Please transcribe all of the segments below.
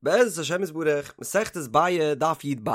בעזרת השם יתברך, מסכת ביעא, דף י"ב.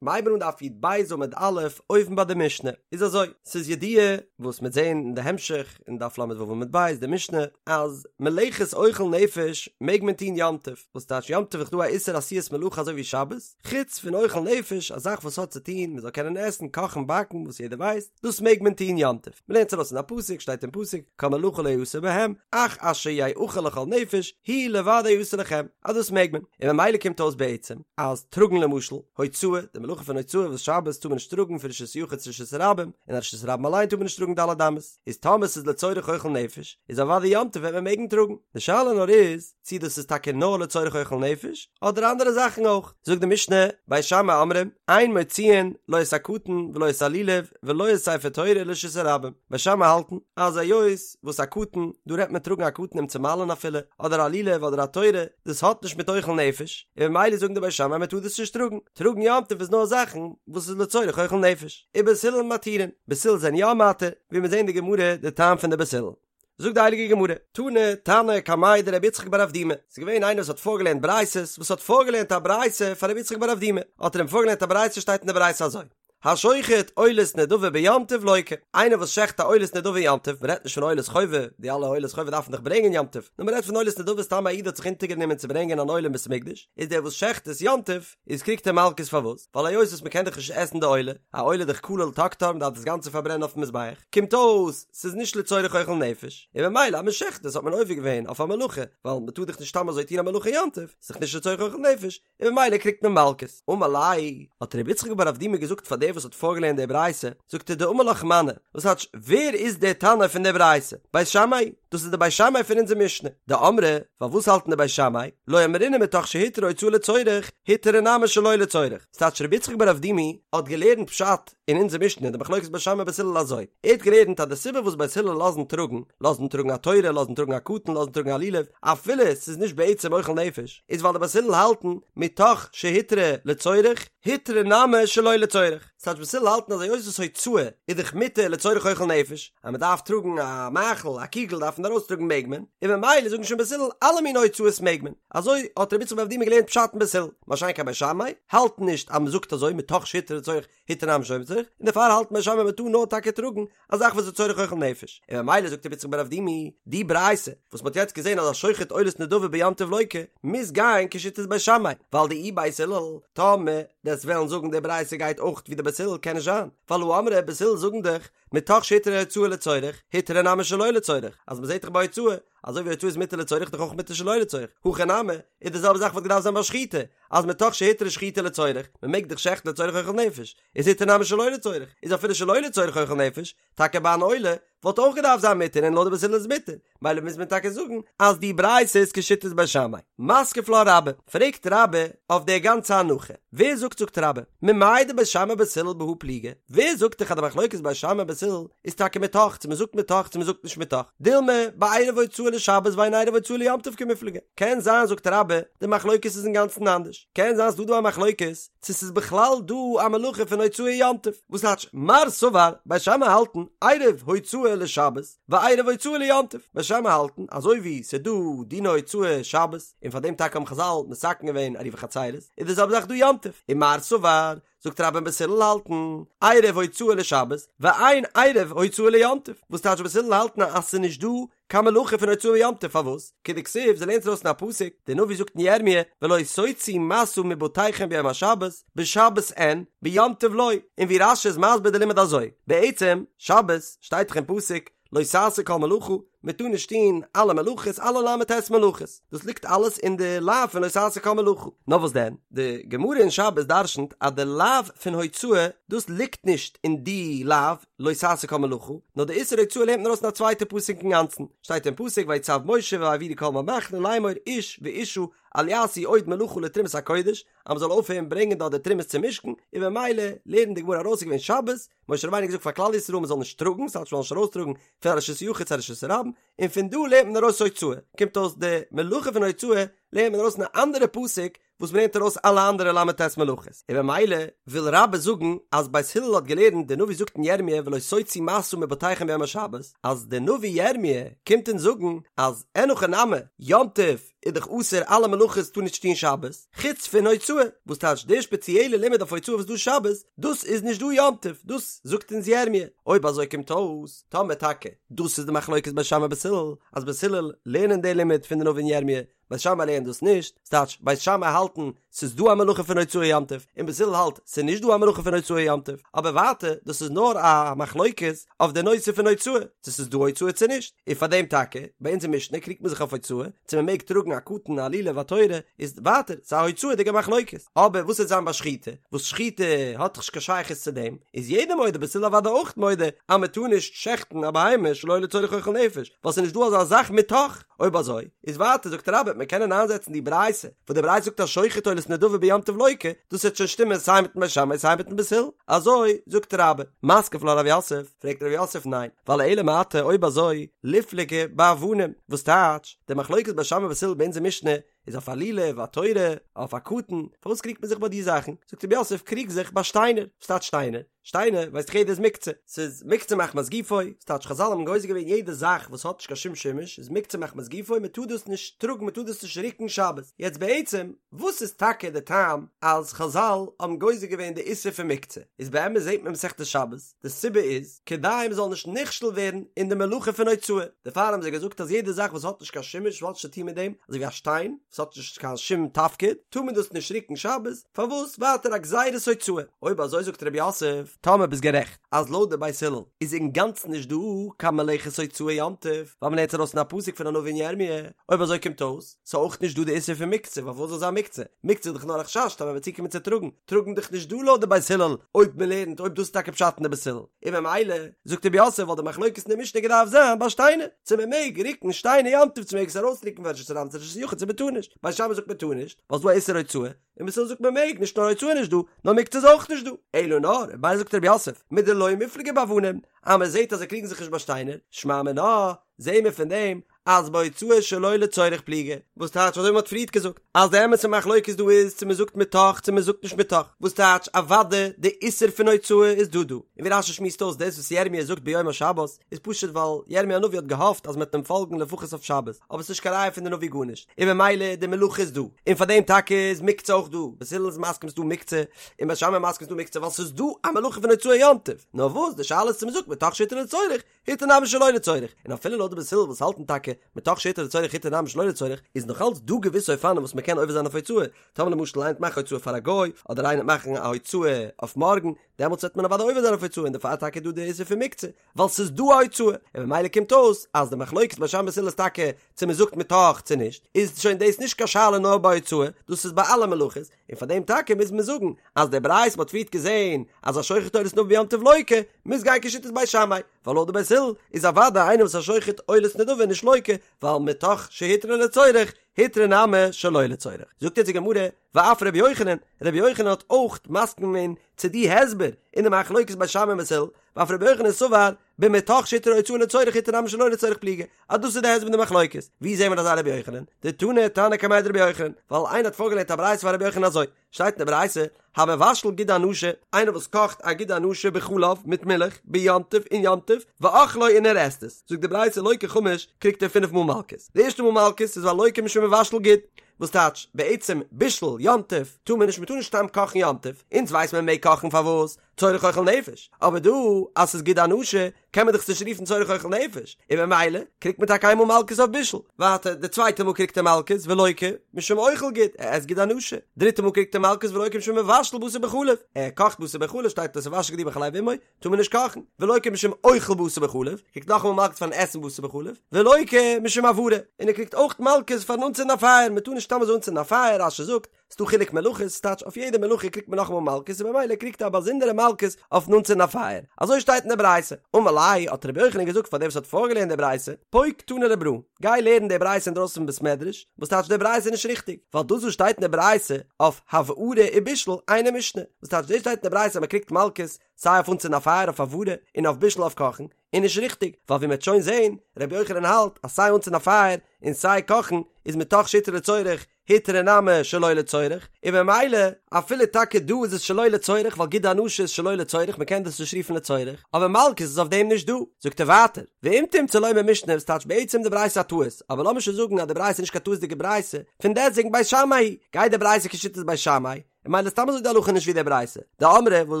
מ'הייבן אן דף י"ב עמוד א', אויבן ביי די משנה. איז אזוי, ס'איז ידוע, וואס מ'עט זען אין די המשך, אין דף ל"ו עמוד ב', די משנה, אז מלאכת אוכל נפש מעג מען טון יום טוב, וואס טייטש יום טוב איז דא א איסור עשיית מלאכה אזוי ווי שבת, חוץ פון אוכל נפש, א זאך וואס האט צו טון מ'זאל קענען עסן, קאכן, באקן, וואס יעדער ווייסט, דאס מעג מען טון יום טוב. מ'לערנט עס ארויס אין א פסוק, שטייט אין פסוק, כל מלאכה לא יעשה בהם, אך אשר יאכל לכל נפש, הוא לבדו יעשה לכם, אז דאס מעג מען. און ממילא קומט אויס בעצם, אז טראגן למשל, הוצאה, די מלאכה פון הוצאה וואס שבת טאר מען נישט טראגן פון רשות יחיד צו רשות הרבים, און א רשות הרבים אליין טאר מען נישט טראגן ד' אמות, איז טאמער ס'איז לצורך אוכל נפש, איז אוודאי יום טוב וועט מען מעגן טראגן. די שאלה נאר איז, צי דאס איז טאקע נאר לצורך אוכל נפש, אדער אנדערע זאכן אויך. זאגט די משנה, בית שמאי אומרים, אין מוציאין לא את הקטן ולא את הלולב ולא את ספר תורה לרשות הרבים. בית שמאי האלטן, אז היות וואס א קטן, דא רעדט מען טראגן א קטן אים צו מל'ן אפילו, אדער א לולב אדער א תורה, דאס האט נישט מיט אוכל נפש, און ממילא זאגן די בית שמאי מען טאר דאס נישט טראגן. טראגן יום טוב איז נאר זאכן וואס איז לצורך אוכל נפש. ובית הלל מתירין, בית הלל זענען יא מתיר, ווי מיר זעהן אין די גמרא די טעם פון די בית הלל. זאגט די הייליגע גמרא, תני תנא קמיה דרבי יצחק בר אבדימי, ס'איז געווען איינער וואס האט פארגעלערנט ברייתות, וואס האט פארגעלערנט א ברייתא פאר רבי יצחק בר אבדימי, האט ער אים פארגעלערנט א ברייתא שטייט אין די ברייתא אזוי, השוחט עולת נדבה ביום טוב לוקה, איינער וואס שעכט א עולת נדבה יום טוב, מ'רעדט נישט פון עולת חובה, די אלע עולת חובה דארף מען דאך ברענגען יום טוב, נאר מ'רעדט פון עולת נדבה סתם א איד האט זיך אונטערגענומען צו ברענגען אן עולה אין בית המקדש, איז דער וואס שעכט עס יום טוב, איז קריגט ער מלקות פארוואס? ווייל היות וואס מ'קען דאך נישט עסן די עולה, א עולה איז דאך כליל תקטר מ'דארף דאס גאנצע פארברענען אויפן מזבח, קומט אויס ס'איז נישט לצורך אוכל נפש, און ממילא אז מ'שעכט עס האט מען עובר געווען אויף א מלאכה, ווייל מ'טאר דאך נישט סתם אזוי טון א מלאכה יום טוב, ס'איז דאך נישט לצורך אוכל נפש, און ממילא קריגט מען מלקות. אמר ליה, האט רבי יצחק בר אבדימי געזאגט פאר דער וואס האט פארגעלערנט די ברייתא, זאגט ער דאמר לך מני, וואס טייטש ווער איז דער תנא פון דער ברייתא? בית שמאי, דאס איז די בית שמאי פון אונזער משנה, דאמרי, ווייל וואס האלטן די בית שמאי? לא אמרינן מתוך שהותרה הוצאה לצורך, הותרה נמי שלא לצורך. ס'טייטש רבי יצחק בר אבדימי האט געלערנט פשט אין אונזער משנה די מחלוקת בית שמאי בית הלל אזוי, ער האט געלערנט אז די סיבה וואס בית הלל לאזן טראגן, לאזן טראגן א תורה, לאזן טראגן א קטן, לאזן טראגן א לולב, אפילו ס'איז נישט בעצם אוכל נפש, איז ווייל די בית הלל האלטן מתוך שהותרה לצורך, הותרה נמי שלא לצורך. ס'טייטש בית הלל האלטן אז היות וואס הוצאה איז דאך מותר לצורך אוכל נפש, אז מ'דארף טראגן א מאכל, א קוגל דארף מען ארויסטראגן מעג מען, און ממילא זאגן שוין בית הלל אלע מיני הוצאות מעג מען. אזוי האט רבי יצחק בר אבדימי געלערנט פשט אין בית הלל, מה שאין כן בית שמאי האלטן נישט אז מ'זאגט אזוי מתוך שהותרה לצורך הותרה נמי שלא לצורך, און דערפאר האלטן בית שמאי מ'טאר נאר טאקע טראגן א זאך וואס איז לצורך אוכל נפש, און ממילא זאגט רבי יצחק בר אבדימי, די ברייתא וואס מ'האט יעצט געזען אז השוחט עולת נדבה ביום טוב לוקה, מוז גיין כשיטת בית שמאי, ווייל דאי בית הלל, טאמער דו'סט וועלן זאגן די ברייתא גייט אויך ווי די בית הלל קען נישט זיין, ווייל הא אמרי בית הלל זאגן דאך מתוך שהותרה הוצאה לצורך, הותרה נמי שלא לצורך, אז מ'זעט דאך ביי הוצאה, אזוי ווי הוצאה איז מותר לצורך דאך אויך מותר שלא לצורך, הכא נמי, איז די זעלבע זאך וואלט געדארפט זיין ביי שחיטה, אז מתוך שהותרה שחיטה לצורך, מ'מעג דאך שעכטן לצורך אוכל נפש, איז הותרה נמי שלא לצורך, איז אפילו שלא לצורך אוכל נפש, טאקע ביי אן עולה, וואלט אויך געדארפט זיין מותר און לויט די בית הלל איז מותר, מילא מוז מען טאקע זאגן אז די ברייתא איז כשיטת בית שמאי. מתקיף לה רבה, פרעגט רבה אויף די גאנצע הנחה, ווער זאגט זאגט רבה, ממאי דבית שמאי ובית הלל בהא פליגי, ווער זאגט דיך אז די מחלוקת בית שמאי ובית הלל איז טאקע מתוך צו מען זאגט מתוך צו מען זאגט נישט מתוך, דילמא בעירוב הוצאה לשבת ואין עירוב הוצאה ליום טוב קמיפלגי, קען זיין זאגט רבה די מחלוקת איז אינגאנצן אנדערש, קען זיין ס'דא דא א מחלוקת צו ס'איז בכלל דא א מלאכה פון הוצאה יום טוב, וואס טייטש מר סבר, בית שמאי האלטן עירוב הוצאה לשבת ועירוב הוצאה ליום טוב, בית שמאי האלטן אזוי ווי ס'איז דא דיני הוצאה שבת, און פאר דעם טאקע האבן חזל מתקן געווען עירובי חצירות, איז די זעלבע זאך דא יום טוב, און מר סבר, זאגט רבה בית הלל האלטן עירוב הוצאה לשבת ואין עירוב הוצאה ליום טוב, וואס טייטש בית הלל האלטן אז ס'איז נישט דא קיין מלאכה פון הוצאה יום טוב פארוואס? כדכתיב זיי לערנט ארויס אין א פסוק, דער נביא זאגט אין ירמיה ולא תוציאו משא מבתיכם ביום השבת, בשבת אין, ביום טוב לא, און ווי רש"י איז מסביר די לימוד אזוי, בעצם, שבת, שטייט דאך אין פסוק, לא תעשו כל מלאכה, מען טאר נישט טון אלע מלאכות, אלע ל"ט מלאכות, דאס ליגט אלעס אין די לאו פון לא תעשו כל מלאכה, נאר וואס דען, די גמרא אין שבת דרשנ'ט אז די לאו פון הוצאה, דאס ליגט נישט אין די לאו, לא תעשו כל מלאכה, נאר די איסור הוצאה לערנט מען ארויס אין א צווייטע פסוק אינגאנצן, שטייט אין פסוק ויצו משה ויעבירו כל עם במחנה לאמור איש ואשה אל יעשו עוד מלאכה לתרומת הקודש, אז מען זאל אויפהערן ברענגען דארט די תרומות צום משכן, און במילא לערנט די גמרא ארויס ס'איז געווען שבת, משה רבינו האט געזאגט פאר כלל ישראל מען זאל נישט טראגן, ס'טייטש מען זאל נישט ארויסטראגן פון א רשות יחיד צו א רשות הרבים, און פון דא לערנט מען ארויס הוצאה, קומט אויס די מלאכה פון הוצאה. לערנט מען ארויס אין א אנדערע פסוק וואס מ'לערנט ארויס אלע אנדערע ל"ט מלאכות, און במילא וויל רבה זאגן אז בית הלל האט געלערנט, די נביא זאגט אין ירמיה ולא תוציאו משא מבתיכם ביום השבת, אז די נביא ירמיה קומט אונז זאגן אז אין הכי נמי, יום טוב איז דאך אסור אלע מלאכות טאר נישט טון שבת, חוץ פון הוצאה, וואס טייטש די שפעציעלע לימוד אויף הוצאה וואס איז דא שבת, דאס איז נישט דא יום טוב, דאס זאגט אונז ירמיה, אויב אזוי קומט אויס, טאמער טאקע דאס איז די מחלוקת בית שמאי בית הלל, אז בית הלל לערנען די לימוד פון די נביא אין ירמיה, בית שמאי לערנט דאס נישט, ס'טייטש בית שמאי האלטן ס'איז דא א מלאכה פון הוצאה יום טוב, און בית הלל האלט ס'איז נישט דא א מלאכה פון הוצאה יום טוב, אבער ווייטער דאס איז נאר א מחלוקת אויף די נושא פון הוצאה, צו ס'איז דא הוצאה צו נישט, און פאר דעם טאקע, ביי אונזער משנה קריגט מען זיך אויף הוצאה, צו מען מעג טראגן א קטן א לולב א תורה, איז ווייטער ס'איז א הוצאה'דיגע מחלוקת, אבער וואס וועט זיין ביי שחיטה, וואס שחיטה האט דאך נישט קיין שייכות צו דעם, איז יעדער מודה בית הלל אוודאי אויך מודה אז מען טאר נישט שעכטן א בהמה שלא לצורך אוכל נפש, ווייל ס'איז נישט דא אזא זאך מתוך. אויב אזוי, איז ווייטער זאגט רבה מען קענען איינזעצן די ברייתא, וואס די ברייתא זאגט השוחט עולת נדבה ביום טוב לוקה, דאס וועט שוין שטימען סיי מיטן בית שמאי סיי מיטן בית הלל, אזוי זאגט רבה. מתקיף לה רב יוסף, פרעגט רב יוסף ניין, ווייל אלא מעתה אויב אזוי, ליפלגו באבנים, וואס טייטש, די מחלוקת בית שמאי בית הלל ביי אונזער משנה איז אויף א לולב, א תורה, אויף א קטן, פארוואס קריגט מען זיך ביי די זאכן? זאגט רב יוסף קריג זיך ביי שטיינער, וואס טייטש שטיינער? שטיינער ווייסט דאך יעדער איז מוקצה, ס'איז מוקצה מחמת גופו, ס'טייטש חזל האבן גוזר געווען יעדע זאך וואס האט נישט קיין שום שימוש איז מוקצה מחמת גופו מען טאר דאס נישט טראגן מען טאר דאס נישט רוקן שבת, יעצט בעצם וואס איז טאקע די טעם אז חזל האבן גוזר געווען די איסור פון מוקצה, איז באמת זעט מען מסכת שבת די סיבה איז כדי מען זאל נישט נכשל ווערן אין די מלאכה פון הוצאה, דערפאר האבן זיי געזאגט אז יעדע זאך וואס האט נישט קיין שימוש וואס האט נישט צו טון מיט דעם, אזוי ווי א שטיין וואס האט נישט קיין שום תפקיד טאר מען דאס נישט רוקן שבת, פארוואס ווייטער א גזירת הוצאה? אויב אזוי זאגט רב יוסף, טאמער ביסט גערעכט אז לויט די בית הלל איז אינגאנצן נישט דא קיין מלאכת הוצאה יום טוב, ווייל מ'לערנט ארויס אין א פסוק פון א נביא אין ירמי', אויב אזוי קומט אויס ס'איז אויך נישט דא די איסור פון מוקצה, ווייל וואס זאל זיין מוקצה? מוקצה איז דאך נאר א חשש טאמער מ'וועט צוקומען צו טראגן, טראגן דאך נישט דא לויט די בית הלל, אויב מ'לערנט אויב דאס איז טאקע פשט אין די בית הלל, און ממילא זאגט רב יוסף וואלט די מחלוקת אין די משנה געדארפט זיין ביי שטיינער, צו מ'מעג רוקן שטיינער יום טוב צו מ'מעג עס ארויסרוקן פון רשות הרבים צו רשות היחיד צו מ'טאר נישט, בית שמאי זאגט מ'טאר נישט, ווייל ס'איז דא א איסור הוצאה, און בית הלל זאגט מען מעג, נישט נאר הוצאה נישט דא, נאר מוקצה איז אויך נישט דא. אלא נאר, ממילא זאגט רב יוסף, מדלא מיפלגי באבנים, אז מען זעט אז זיי קריגן זיך נישט ביי שטיינער, שמע מינה, זעהן מיר פון דעם, אז בהוצאה שלא לצורך פליגי, וואס טייטש אזוי ווי מען האט פריערט געזאגט, אז די אמת'ע מחלוקת דא איז צו מען זאגט מתוך צו מען זאגט נישט מתוך, וואס טייטש אוודאי די איסור פון הוצאה איז דא דא, און ווי רשי שמועסט אויס דאס וואס ירמי' זאגט ביום השבת, איז פשוט ווייל ירמי' הנביא האט געהאפט אז מ'וועט אים פאלגן לפחות אויף שבת, אבער ס'נישט קיין ראיה פון די נביא גארנישט, און ממילא די מלאכה איז דא, און פאר דעם טאקע איז מוקצה אויך דא, בית הלל איז מסכים ס'דא מוקצה, און בית שמאי מסכים ס'דא מוקצה ווייל ס'איז דא א מלאכה פון הוצאה יום טוב, נאר וואס די שאלה איז צו מ'זאגט מתוך שהותר לצורך, הותר נמי שלא לצורך, און אפילו לויט די בית הלל וואס האלטן טאקע מתוך שהותר לצורך הותר נמי שלא לצורך, איז נאך אלץ דא געוויסע אופנים וואס מ'קען עובר זיין אויף הוצאה, טאמער למשל איינער וועט מאכן הוצאה פאר א גוי, אדער איינער וועט מאכן א הוצאה אויף מארגן, דעמאלטס וועט מען אוודאי עובר זיין אויף הוצאה און דערפאר טאקע איז דא די איסור פון מוקצה, ווייל ס'איז דא א הוצאה, און ממילא קומט אויס אז די מחלוקת בית שמאי בית הלל איז טאקע צו מען זאגט מתוך צו נישט, איז שוין דאס נישט קיין שאלה נאר ביי הוצאה, דאס איז ביי אלע מלאכות, און פאר דעם טאקע מוז מען זאגן אז די ברייתא מ'האט פריערט געזען אז השוחט עולת נדבה ביום טוב לוקה, מוז גיין כשיטת בית שמאי, ווייל לויט די בית הלל איז אוודאי איינער וואס איז א שוחט עולת נדבה נישט לוקה, ווייל מתוך שהותרה לצורך, הותרה נמי שלא לצורך. זאגט יעצט די גמרא, ואף רבי יוחנן, רבי יוחנן האט אויך מסכים געווען צו די הסבר אין די מחלוקת בית שמאי און בית הלל, ואף רבי יוחנן סבר במתוך שהותרה הוצאה לצורך הותרה נמי שלא לצורך פליגי, אז דאס איז די הסבר אין די מחלוקת. ווי זעהן מיר אזא רבי יוחנן? דתני תנא קמיה דרבי יוחנן, ווייל איינער האט פארגעלערנט א ברייתא פאר רבי יוחנן אזוי, שטייט אין די ברייתא, המבשל גיד הנשה, איינער וואס קאכט א גיד הנשה בחלב, מיט מילך, ביום טוב, אין יום טוב, ואוכלו און ער עסט עס, זאגט די ברייתא לוקה חמש, קריגט ער פינף מאל מלקות. די ערשטע מאל מלקות איז ווייל לוקה משום מבשל גיד, וואס טייטש, בעצם בישול יום טוב טאר מען נישט, מען טאר נישט סתם קאכן יום טוב, אונז ווייסט מען מעג קאכן פארוואס? צורך אוכל נפש, אבער דא אז ס'איז גיד הנשה קען מען דאך עס נישט רופן צורך אוכל נפש, און ממילא קריגט מען טאקע איינמאל מלקות אויף בישול, ווייטער די צווייטע מאל קריגט ער מלקות ולוקה משום אוכל גיד, ער עסט גיד הנשה, דריטע מאל קריגט ער מלקות ולוקה משום מבשל בשר בחלב, ער קאכט בשר בחלב שטייט לא תבשל גדי בחלב אמו, טאר מען נישט קאכן, ולוקה משום אוכל בשר בחלב, קריגט נאכאמאל מלקות פארן עסן בשר בחלב, ולוקה משום הבערה, און ער קריגט אויך מלקות פארן אנצינדן א פייער, מען טאר נישט סתם אזוי אנצינדן א פייער, רש"י זאגט, ס'דא חילוק מלאכות, ס'טייטש אויף יעדע מלאכה קריגט מען נאכאמאל מלקות און במילא קריגט ער א באזונדערע מלקות אויפן אנצינדן א פייער. אזוי שטייט אין די ברייתא. אמר ליה, האט רבי יוחנן געזאגט פאר דעם וואס האט פארגעלערנט די ברייתא, פוק תני לברא, גיי לערן די ברייתא אינדרויסן פון בית מדרש, וואס טייטש די ברייתא איז נישט ריכטיג, ווייל דאס וואס שטייט אין די ברייתא אויף הבערה ובישול אינה משנה, וואס טייטש דאס שטייט אין די ברייתא אז מען קריגט מלקות סיי אויף אנצינדן א פייער אויף הבערה און אויף בישול אויף קאכן, איז נישט ריכטיג, ווייל ווי מען וועט שוין זען, רבי יוחנן האלט אז סיי אנצינדן א פייער און סיי קאכן איז מתוך שהותרה לצורך. הותרה נמי שלא לצורך, און ממילא אפילו טאקע דא איז עס שלא לצורך ווייל גיד הנשה איז שלא לצורך מ'קען דאס נישט רופן לצורך, אבער מלקות איז אויף דעם נישט דא. זאגט ער ווייטער, ואם תמצא לומר משנה וואס טייטש בעצם די ברייתא א טעות, אבער לאמיר שוין זאגן אז די ברייתא איז נישט קיין טעות'דיגע ברייתא, פון דעסטוועגן בית שמאי היא, גייט די ברייתא כשיטת בית שמאי, און ממילא סתם אזוי די הלכה נישט ווי די ברייתא, דאמרי וואס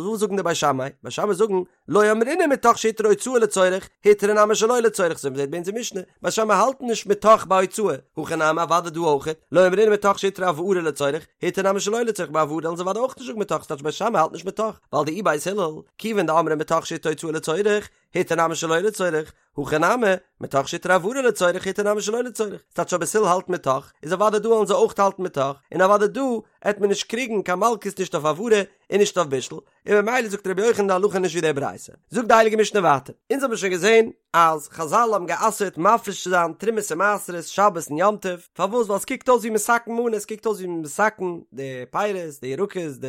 וואס זאגן די בית שמאי? בית שמאי זאגן, לא אמרינן מתוך שהותרה הוצאה לצורך, הותרה נמי שלא לצורך, אזוי ווי מ'זעט ביי אונזער משנה, בית שמאי האלטן נישט מתוך ביי הוצאה, הכא נמי אוודאי דא אויכעט, לא אמרינן מתוך שהותרה הבערה לצורך, הותרה נמי שלא לצורך ביי הבערה וועלן זיי אוודאי אויך נישט זאגן מתוך, ס'טייטש בית שמאי האלט נישט מתוך, ווייל דאי בית הלל, כיוון דאמרי מתוך שהותרה הוצאה לצורך, הותרה נמי שלא לצורך, הכא נמי, מתוך שהותרה הבערה לצורך הותרה נמי שלא לצורך, ס'טייטש אז בית הלל האלט מתוך, איז אוודאי דא וועלן זיי אויך האלטן מתוך, און אוודאי דא עט מען נישט קריגן קיין מלקות נישט אויף הבערה און נישט אויף בישול, און ממילא זאגט רבי יוחנן די הלכה נישט ווי די ברייתא. זאגט די הייליגע משנה ווייטער, אונז האבן שוין געזען אז חזל האבן גע'אסר'ט מפריש צו זיין תרומות און מעשרות שבת און יום טוב, פארוואס? ווייל עס קוקט אויס ווי מתקן מנה, עס קוקט אויס ווי מתקן די פירות, די ירקות, די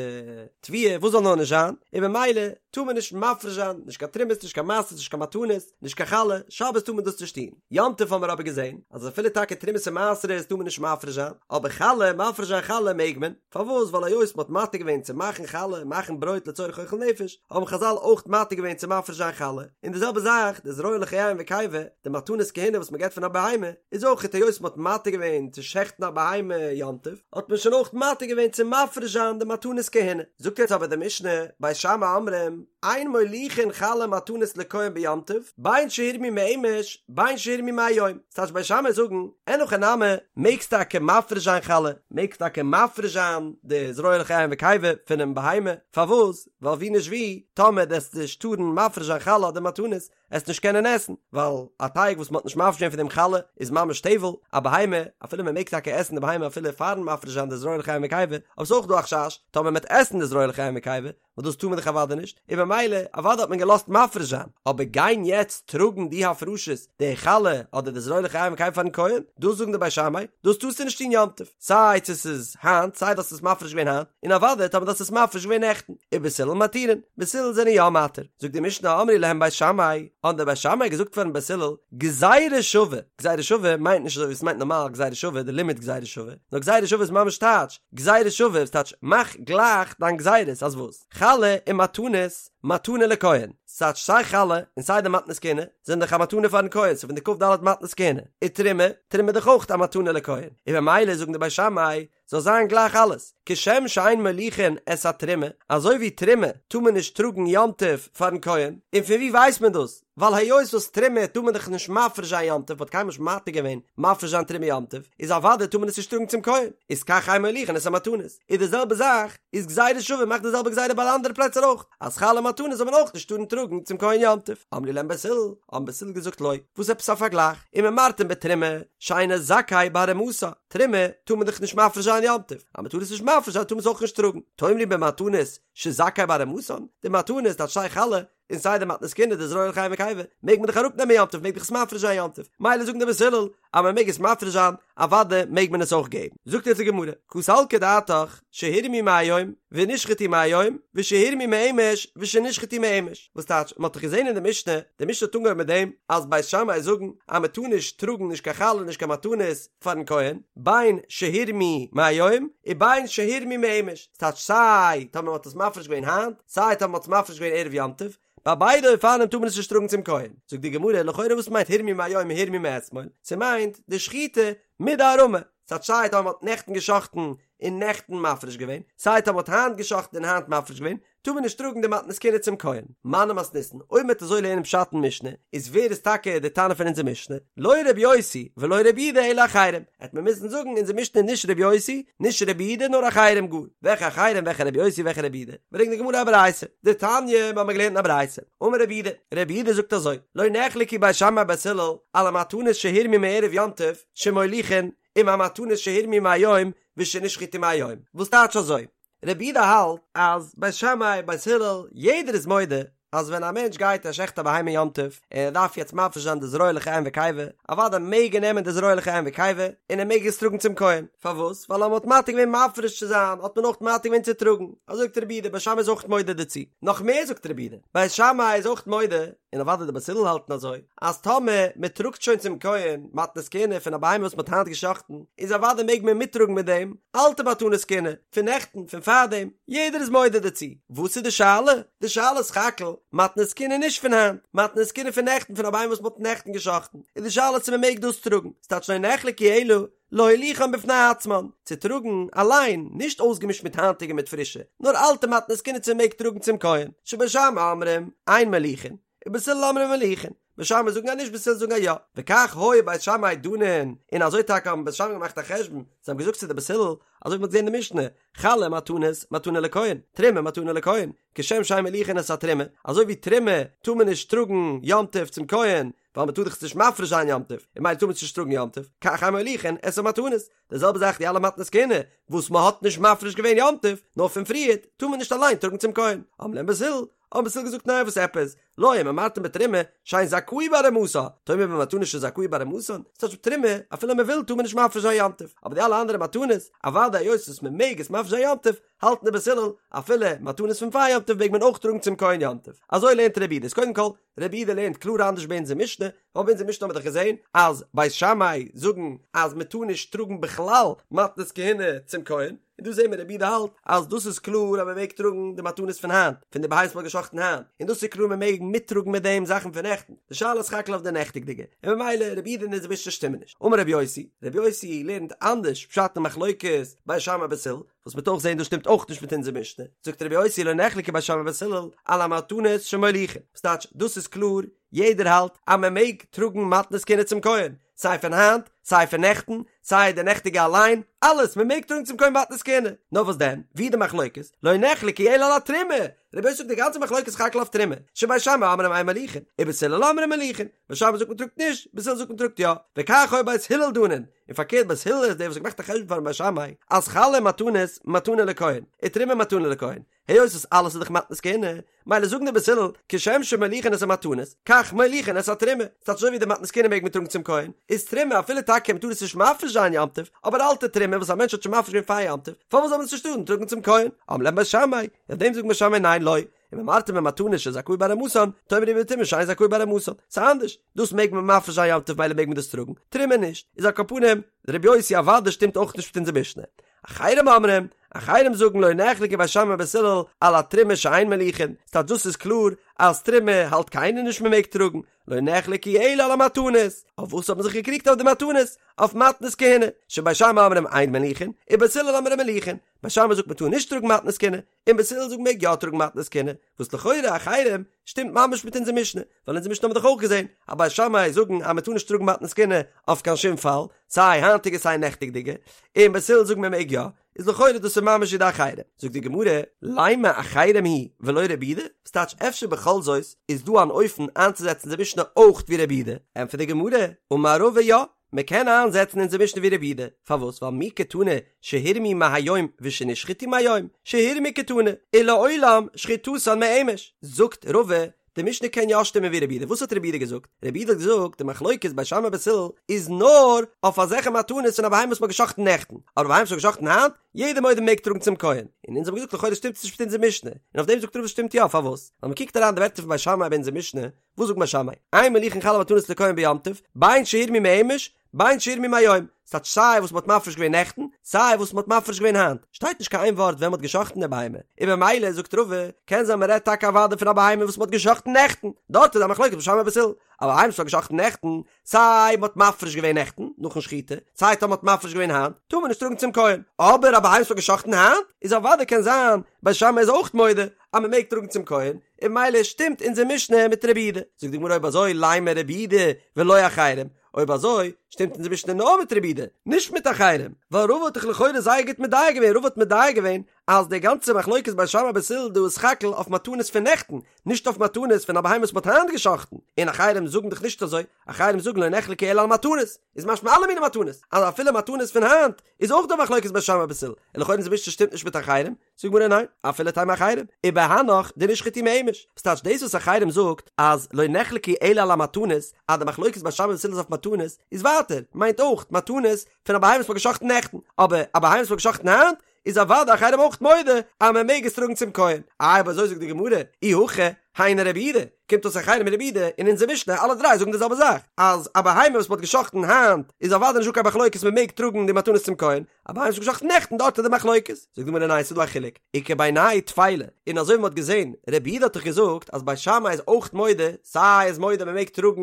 תבואה, וואס זאל נאר נישט זיין, און ממילא טאר מען נישט מפריש זיין, נישט קיין תרומות, נישט קיין מעשרות, נישט קיין מתנות, נישט קיין חלה, שבת טאר מען דאס נישט טון. יום טוב האבן מיר אבער געזען, אז אפילו טאקע תרומות און מעשרות טאר מען נישט מפריש זיין, אבער חלה, מפריש זיין חלה מעג מען, פארוואס? ווייל היות מען האט מתיר געווען צו מאכן חלה, מאכן ברויט לצורך אוכל נפש, האבן חזל אויך מתיר געווען צו מפריש זיין חלה, און די זעלבע זאך, די זרוע לחיים וקיבה, די מתנות כהונה וואס מען געבט פון א בהמה, איז אויך היות מען האט מתיר געווען צו שעכטן א בהמה יום טוב, האט מען שוין אויך מתיר געווען צו מפריש זיין די מתנות כהונה. זאגט יעצט אבער די משנה, בית שמאי אומרים, אין מוליכין חלה ומתנות לכהן ביום טוב, בין שהורמו מאמש, בין שהורמו מהיום. ס'טייטש בית שמאי זאגן, אין הכי נמי, מעגסט טאקע מפריש זיין חלה, מעגסט טאקע מפריש זיין די זרוע לחיים וקיבה פונעם בהמה, פארוואס? ווייל ווי נישט ווי, טאמער דו עסט נישט טארן מפריש זיין חלה אדער מתנות, עסט נישט קענען עסן, ווייל א טייג וואס מ'האט נישט מפריש געווען פון דעם חלה איז ממש טבל, א בהמה, אפילו מ'מעג טאקע עסן די בהמה אפילו פארן מפריש זיין די זרוע לחיים וקיבה, אבער ס'איז אויך דא א חשש, טאמער מ'עט עסן די זרוע לחיים וקיבה, וואס דאס טאר מען דאך אוודאי נישט, און במילא אוודאי האט מען געלאזט מפריש זיין, אבער גיין יעצט טראגן די הפרשות, די חלה אדער די זרוע לחיים וקיבה פארן כהן, דאס זאגן די בית שמאי, דאס טארסטו נישט טון יום טוב, סיי צו ס'איז היינט, סיי דו האסט עס מפריש געווען היינט, און אוודאי טאמער דו האסט עס מפריש געווען נעכטן, ובית הלל מתירין, בית הלל זענען יא מתיר, זאגט די משנה אמרו להם בית שמאי, האבן די בית שמאי געזאגט פארן בית הלל, גזירה שווה, גזירה שווה מיינט נישט אזוי ווי עס מיינט נארמאל גזירה שווה, די לימוד גזירה שווה, נאר גזירה שווה איז ממש טייטש, גזירה שווה איז טייטש מאך גלייך דיין גזירות אז וואס? חלה און מתנות, מתנה לכהן, ס'טייטש סיי חלה און סיי די מתנות כהונה זענען דאך א מתנה פארן כהן, ס'איז פון די כ"ד מתנות כהונה, ותרומה, תרומה איז דאך אויך א מתנה לכהן, און במילא זאגן די בית שמאי זאל זיין גלייך אלעס, כשם שאין מוליכין את התרומה, אזוי ווי תרומה טאר מען נישט טראגן יום טוב פארן כהן, און פון ווי ווייסט מען דאס? ווייל היות וואס תרומה טאר מען דאך נישט מפריש זיין יום טוב, מ'האט קיינמאל נישט מתיר געווען מפריש זיין תרומה יום טוב, איז אוודאי טאר מען עס נישט טראגן צום כהן, איז כך אין מוליכין את המתנות, איז די זעלבע זאך, איז גזירה שווה מאכט די זעלבע גזירה ביי אלע אנדערע פלעצער אויך, אז חלה מתנות זאל מען אויך נישט טארן טראגן צום כהן יום טוב, אמרו להם בית הלל, האבן בית הלל געזאגט לא, וואס עפעס א פארגלייך, אם אמרתם בתרומה, שאינו זכאי בהרמתה, תרומה טאר מען דאך נישט מפריש זיין יום טוב, אז מען טאר עס נישט מפריש זיין טאר מען עס אויך נישט טראגן, תאמרו במתנות שזכאי בהרמתן, די מתנות טייטש סיי חלה און סיי די מתנות כהונה די זרוע לחיים וקיבה, מעג מען דאך אראפ נעמען יום טוב מעג דאך עס מפריש זיין יום טוב, מילא זאגן די בית הלל אז מען מעג עס מפריש זיין אוודאי מעג מען עס אויך געבן, זאגט יעצט די גמרא, קא סלקא דעתך שהורמו מהיום ונשחטו מהיום ושהורמו מאמש ושנשחטו מאמש, וואס טייטש מען האט דאך געזען אין די משנה, די משנה האט אנגעהויבן מיט דעם אז בית שמאי זאגן אז מען טאר נישט טראגן נישט קיין חלה נישט קיין מתנות פארן כהן, בין שהורמו מהיום ובין שהורמו מאמש, ס'טייטש סיי טאמער מען האט עס מפריש געווען היינט, סיי טאמער מען האט עס מפריש געווען ערב יום טוב, ביי ביידע אופנים טאר מען עס נישט טראגן צום כהן. זאגט די גמרא, לכאורה וואס מיינט הורמו מהיום און הורמו מאתמול? ס'מיינט די שחיטה מיט די הרמה, ס'טייטש סיי טאמער מען האט נעכטן גע'שחט'ן און נעכטן מפריש געווען, סיי טאמער מען האט היינט גע'שחט'ן און היינט מפריש געווען, טאר מען נישט טראגן די מתנות כהונה צום כהן. מני מתניתין, אויב מ'וועט אזוי לערנען פשט אין משנה, איז ווער איז טאקע די תנא פון אונזער משנה? לא רבי יוסי ולא רבי יהודה אלא אחרים, העט מען מוזן זאגן אונזער משנה איז נישט רבי יוסי, נישט רבי יהודה נאר אחרים גאר. וועלכע אחרים וועלכע רבי יוסי וועלכע רבי יהודה? ברענגט די גמרא א ברייתא, דתניא, מ'האמיר געלערנט אין א ברייתא, אמר רבי יהודה, רבי יהודה זאגט אזוי, לא נחלקו בית שמאי ובית הלל על המתנות שהורמו מערב יום טוב שמוליכין עם המתנות שהורמו מהיום ושנשחטו מהיום, וואס טייטש אזוי? רבי יהודה האלט אז בית שמאי בית הלל יעדער איז מודה. אז ווען א מענטש גייט ער שעכט א בהמה יום טוב, און ער דארף יעצט מפריש זיין די זרוע לחיים וקיבה, אוודאי מעג ער נעמען די זרוע לחיים וקיבה, און ער מעג עס טראגן צום כהן, פארוואס? ווייל אז מען האט מתיר געווען מפריש צו זיין, האט מען אויך מתיר געווען צו טראגן, אזוי זאגט רבי יהודה, בית שמאי איז אויך מודה דערצו, נאך מער זאגט רבי יהודה, בית שמאי איז אויך מודה, און אוודאי די בית הלל האלטן אזוי, אז טאמער מען טראגט שוין צום כהן מתנות כהונה פון א בהמה וואס מען האט היינט גע'שחט'ן, איז אוודאי מעג מען מיטטראגן מיט דעם אלטע מתנות כהונה, פון נעכטן, פון פארדעם, יעדער איז מודה דערצו. וואס איז די שאלה? די שאלה איז סך הכל, מתנות כהונה נישט פון היינט, מתנות כהונה פון נעכטן פון א בהמה וואס מען האט נעכטן גע'שחט'ן, איז די שאלה צו מען מעג דאס טראגן, ס'טייטש לא נחלקו אלא להוליכן בפני עצמן, צו טראגן אליין, נישט אויסגעמישט מיט היינטיגע מיט פרישע, נאר אלטע מתנות כהונה צו מ'מעג טראגן צום כהן, שבית שמאי אומרים, אין מוליכין, ובית הלל אומרים מוליכין, בית שמאי זאגן אז נישט בית הלל זאגן אז יא, וכך היו בית שמאי דנין, און אזוי טאקע האבן בית שמאי געמאכט א חשבון, זיי האבן געזאגט צו די בית הלל, אזוי ווי מ'האט געזען אין די משנה, חלה מתנות, מתנה לכהן, תרומה מתנה לכהן, כשם שאין מוליכין את התרומה, אזוי ווי תרומה טאר מען נישט טראגן יום טוב צום כהן, ווייל מען טאר דאך עס נישט מפריש זיין יום טוב, און ממילא טאר מען עס נישט טראגן יום טוב, כך אין מוליכין את המתנות, די זעלבע זאך די אלע מתנות כהונה וואס מען האט נישט מפריש געווען יום טוב, נאר פון פריערט, טאר מען נישט אליין טראגן צום כהן. אמרו להם בית הלל, האבן בית הלל געזאגט ניין וואס עפעס, לא אם אמרתם בתרומה שאין זכאי בהרמתה, תאמר במתנות שזכאי בהרמתן, ס'טייטש תרומה אפילו מען וויל טאר מען נישט מפריש זיין יום טוב, אבער די אלע אנדערע מתנות, אוודאי היות וואס מען מעג עס מפריש זיין יום טוב, האלטן די בית הלל, אפילו מתנות פון פאר יום טוב מעג מען אויך טראגן צום כהן יום טוב. אזוי לערנט רבי יהודה, איז קודם כל, רבי יהודה לערנט קלאר אנדערש ביי אונזער משנה, ווייל ביי אונזער משנה האבן מיר דאך געזען אז בית שמאי זאגן אז מען טאר נישט טראגן בכלל מתנות כהונה צום כהן, און דא זעהן מיר רבי יהודה האלט אז דאס איז קלאר אז מען מעג טראגן די מתנות פון היינט, פון די בהמות וואס מען האט גע'שחט'ן היינט, און דאס איז קלאר מען מעג מיטטראגן מיט דעם זאכן פון נעכטן, די שאלה איז סך הכל אויף די נעכטיגדיגע, און ממילא רבי יהודה און אונזער משנה שטימען נישט. אמר רבי יוסי, רבי יוסי לערנט אנדערש פשט אין מחלוקת בית שמאי בית הלל, וואס מ'וועט אויך זעהן דאס שטימט אויך נישט מיט אונזער משנה, זאגט רבי יוסי לא נחלקו בית שמאי ובית הלל על המתנות שמוליכין, וואס טייטש דאס איז קלאר יעדער האלט אז מען מעג טראגן מתנות כהונה צום כהן, סיי פון היינט, סיי פון נעכטן, סיי די נעכטיגע אליין, אלעס, מען מעג טראגן צום כהן מתנות כהונה, נאר וואס דען, ווי די מחלוקת, לא נחלקו אלא על התרומה, רבי יוסי זאגט די גאנצע מחלוקת איז סך הכל אויף תרומה, שבית שמאי אומרים אין מוליכין, ובית הלל אומרים מוליכין, בית שמאי זאגט מען טראגט נישט, בית הלל זאגט מען טראגט יא, וכך היו בית הלל דנין, און פארקערט בית הלל איז דער וואס האט געמאכט א חשבון פארן בית שמאי אז חלה מתנות מתנה לכהן, ותרומה מתנה לכהן, היות וואס אלעס איז דאך מתנות כהונה, מילא זאגן די בית הלל כשם שמוליכין את המתנות, כך מוליכין את התרומה, ס'טייטש אזוי ווי די מתנות כהונה מעג מען טראגן צום כהן, איז תרומה אפילו טאקע מ'טאר עס נישט מפריש זיין יום טוב, אבער אלטע תרומה וואס א מענטש האט שוין מפריש געווען פאר יום טוב, פארוואס זאל מען עס נישט טארן טראגן צום כהן? אמרו להם בית שמאי, אויף דעם זאגט בית שמאי ניין לא, אם אמרתם במתנות שזכאי בהרמתן, תאמרו בתרומה שאין זכאי בהרמתן, ס'איז אנדערש, דאס מעג מען מפריש זיין יום טוב מילא מעג מען דאס טראגן, תרומה נישט, איז על כל פנים, רבי יוסי אוודאי שטימט אויך נישט מיט אונזער משנה. אחרים אומרים, אחרים זאגן לא נחלקו בית שמאי ובית הלל על התרומה שאין מוליכין, ס'טייטש דאס איז קלאר אז תרומה האלט קיינער נישט מען מעג טראגן, לא נחלקו אלא על המתנות, אויף וואס האט מען זיך געקריגט אויף די מתנות? אויף מתנות כהונה, שבית שמאי אומרים אין מוליכין, ובית הלל אומרים מוליכין, בית שמאי זאגט מען טאר נישט טראגן מתנות כהונה, און בית הלל זאגט מעג יא טראגן מתנות כהונה, וואס לכאורה אחרים שטימט ממש מיט אונזער משנה, ווייל אונזער משנה האבן מיר דאך אויך געזען אז בית שמאי זאגן אז מען טאר נישט טראגן מתנות כהונה אויף קיין שום פאל, סיי היינטיגע סיי נעכטיגדיגע, און בית הלל זאגן מען מעג יא, איז לכאורה דאס איז ממש ווי די אחרים. זאגט די גמרא, לימא אחרים היא ולא רבי יהודה, וואס טייטש אפשר בכל זאת איז דא אן אופן איינצוזעצן די משנה אויך ווי רבי יהודה, ענטפערט די גמרא, אמר רבא יא, מען קען איינזעצן אונזער משנה ווי רבי יהודה, פארוואס? ווייל מי קתני שהורמו מהיום ושנשחטו מהיום, שהורמו קתני, ולעולם שחיטתן מאמש, זאגט רבא, די משנה קען יא שטימען ווי רבי יהודה, וואס האט רבי יהודה געזאגט? רבי יהודה האט געזאגט די מחלוקת בית שמאי בית הלל איז נאר אויף אזעלכע מתנות פון א בהמה וואס מען האט גע'שחט'ן נעכטן, אבער בהמה וואס מען האט גע'שחט'ן היינט, יעדער מודה מעג טראגן צום כהן, און אונז האבן געזאגט לכאורה שטימט עס נישט מיט אונזער משנה, און אויף דעם זאגט רבא שטימט יא, פארוואס? ווייל מען קוקט אריין די ווערטער פון בית שמאי ביי אונזער משנה, וואס זאגט בית שמאי? אין מוליכין חלה ומתנות לכהן ביום טוב, בין שהורמו מאמש, בין שהורמו מהיום. ס'טייטש סיי וואס מ'האט מפריש געווען נעכטן, סיי וואס מ'האט מפריש געווען היינט. שטייט נישט קיין איין ווארט ווען מ'האט גע'שחט'ן די בהמה. און במילא, זאגט רבא, קען זיין מ'רעדט טאקע אוודאי פון א בהמה וואס מ'האט גע'שחט'ן נעכטן. דארט איז א מחלוקת בית שמאי בית הלל. אבער א בהמה וואס מ'האט גע'שחט'ן נעכטן, סיי מ'האט מפריש געווען נעכטן, נאכן שחיטה, סיי טאמער מ'האט מפריש געווען היינט, טאר מען נישט טראגן צום כהן. אבער א בהמה וואס מ'האט גע'שחט'ן היינט, איז אוודאי קען זיין, בית שמאי איז אויך מודה, אז מ'מעג טראגן צום כהן, און ממילא שטימט אונזער משנה מיט רבי יהודה. זאגט די גמרא אויב אזוי לימא רבי יהודה ולא אחרים, אויב אזוי. שטימט אונזער משנה נאר מיט רבי יהודה, נישט מיט אחרים, ווייל רבא האט דאך לכאורה זייער גוט מדייק געווען, רבא האט מדייק געווען אז די גאנצע מחלוקת בית שמאי בית הלל דא איז סך הכל אויף מתנות פון נעכטן, נישט אויף מתנות פון א בהמה וואס מ'האט היינט גע'שחט'ן, און אחרים זאגן דאך נישט אזוי, אחרים זאגן לא נחלקו אלא על מתנות, איז משמע אלע מיני מתנות, אז אפילו מתנות פון היינט איז אויך דא מחלוקת בית שמאי בית הלל, און לכאורה אונזער משנה שטימט נישט מיט אחרים, זאגט די גמרא ניין, אפילו תימא אחרים, ובהנך דנשחטו מאימש, וואס טייטש דאס וואס אחרים זאגט אז לא נחלקו אלא על המתנות, אז די מחלוקת בית שמאי בית הלל איז אויף מתנות, איז ווייטער, מיינט אויך מתנות פון א בהמה וואס מ'האט גע'שחט'ן נעכטן, אבער א בהמה וואס מ'האט גע'שחט'ן היינט, איז אוודאי אחרים אויך מודה אז מען מעג עס טראגן צום כהן. איי אויב אזוי זאגט די גמרא, אי הכי, היינו רבי יהודה, קומט אויס אחרים און רבי יהודה און אונזער משנה אלע דריי זאגן די זעלבע זאך, אז א בהמה וואס מען האט גע'שחט'ן היינט איז אוודאי נישטא קיין מחלוקת מען מעג טראגן די מתנות צום כהן, א בהמה וואס מ'האט גע'שחט'ן נעכטן דארט איז די מחלוקת. זאגט די גמרא ניין ס'איז דא א חילוק, איכא בינייהו טפלה, און אזוי ווי מען האט געזען, רבי יהודה האט דאך געזאגט אז בית שמאי איז אויך מודה, סיי איז מודה מען מעג טראגן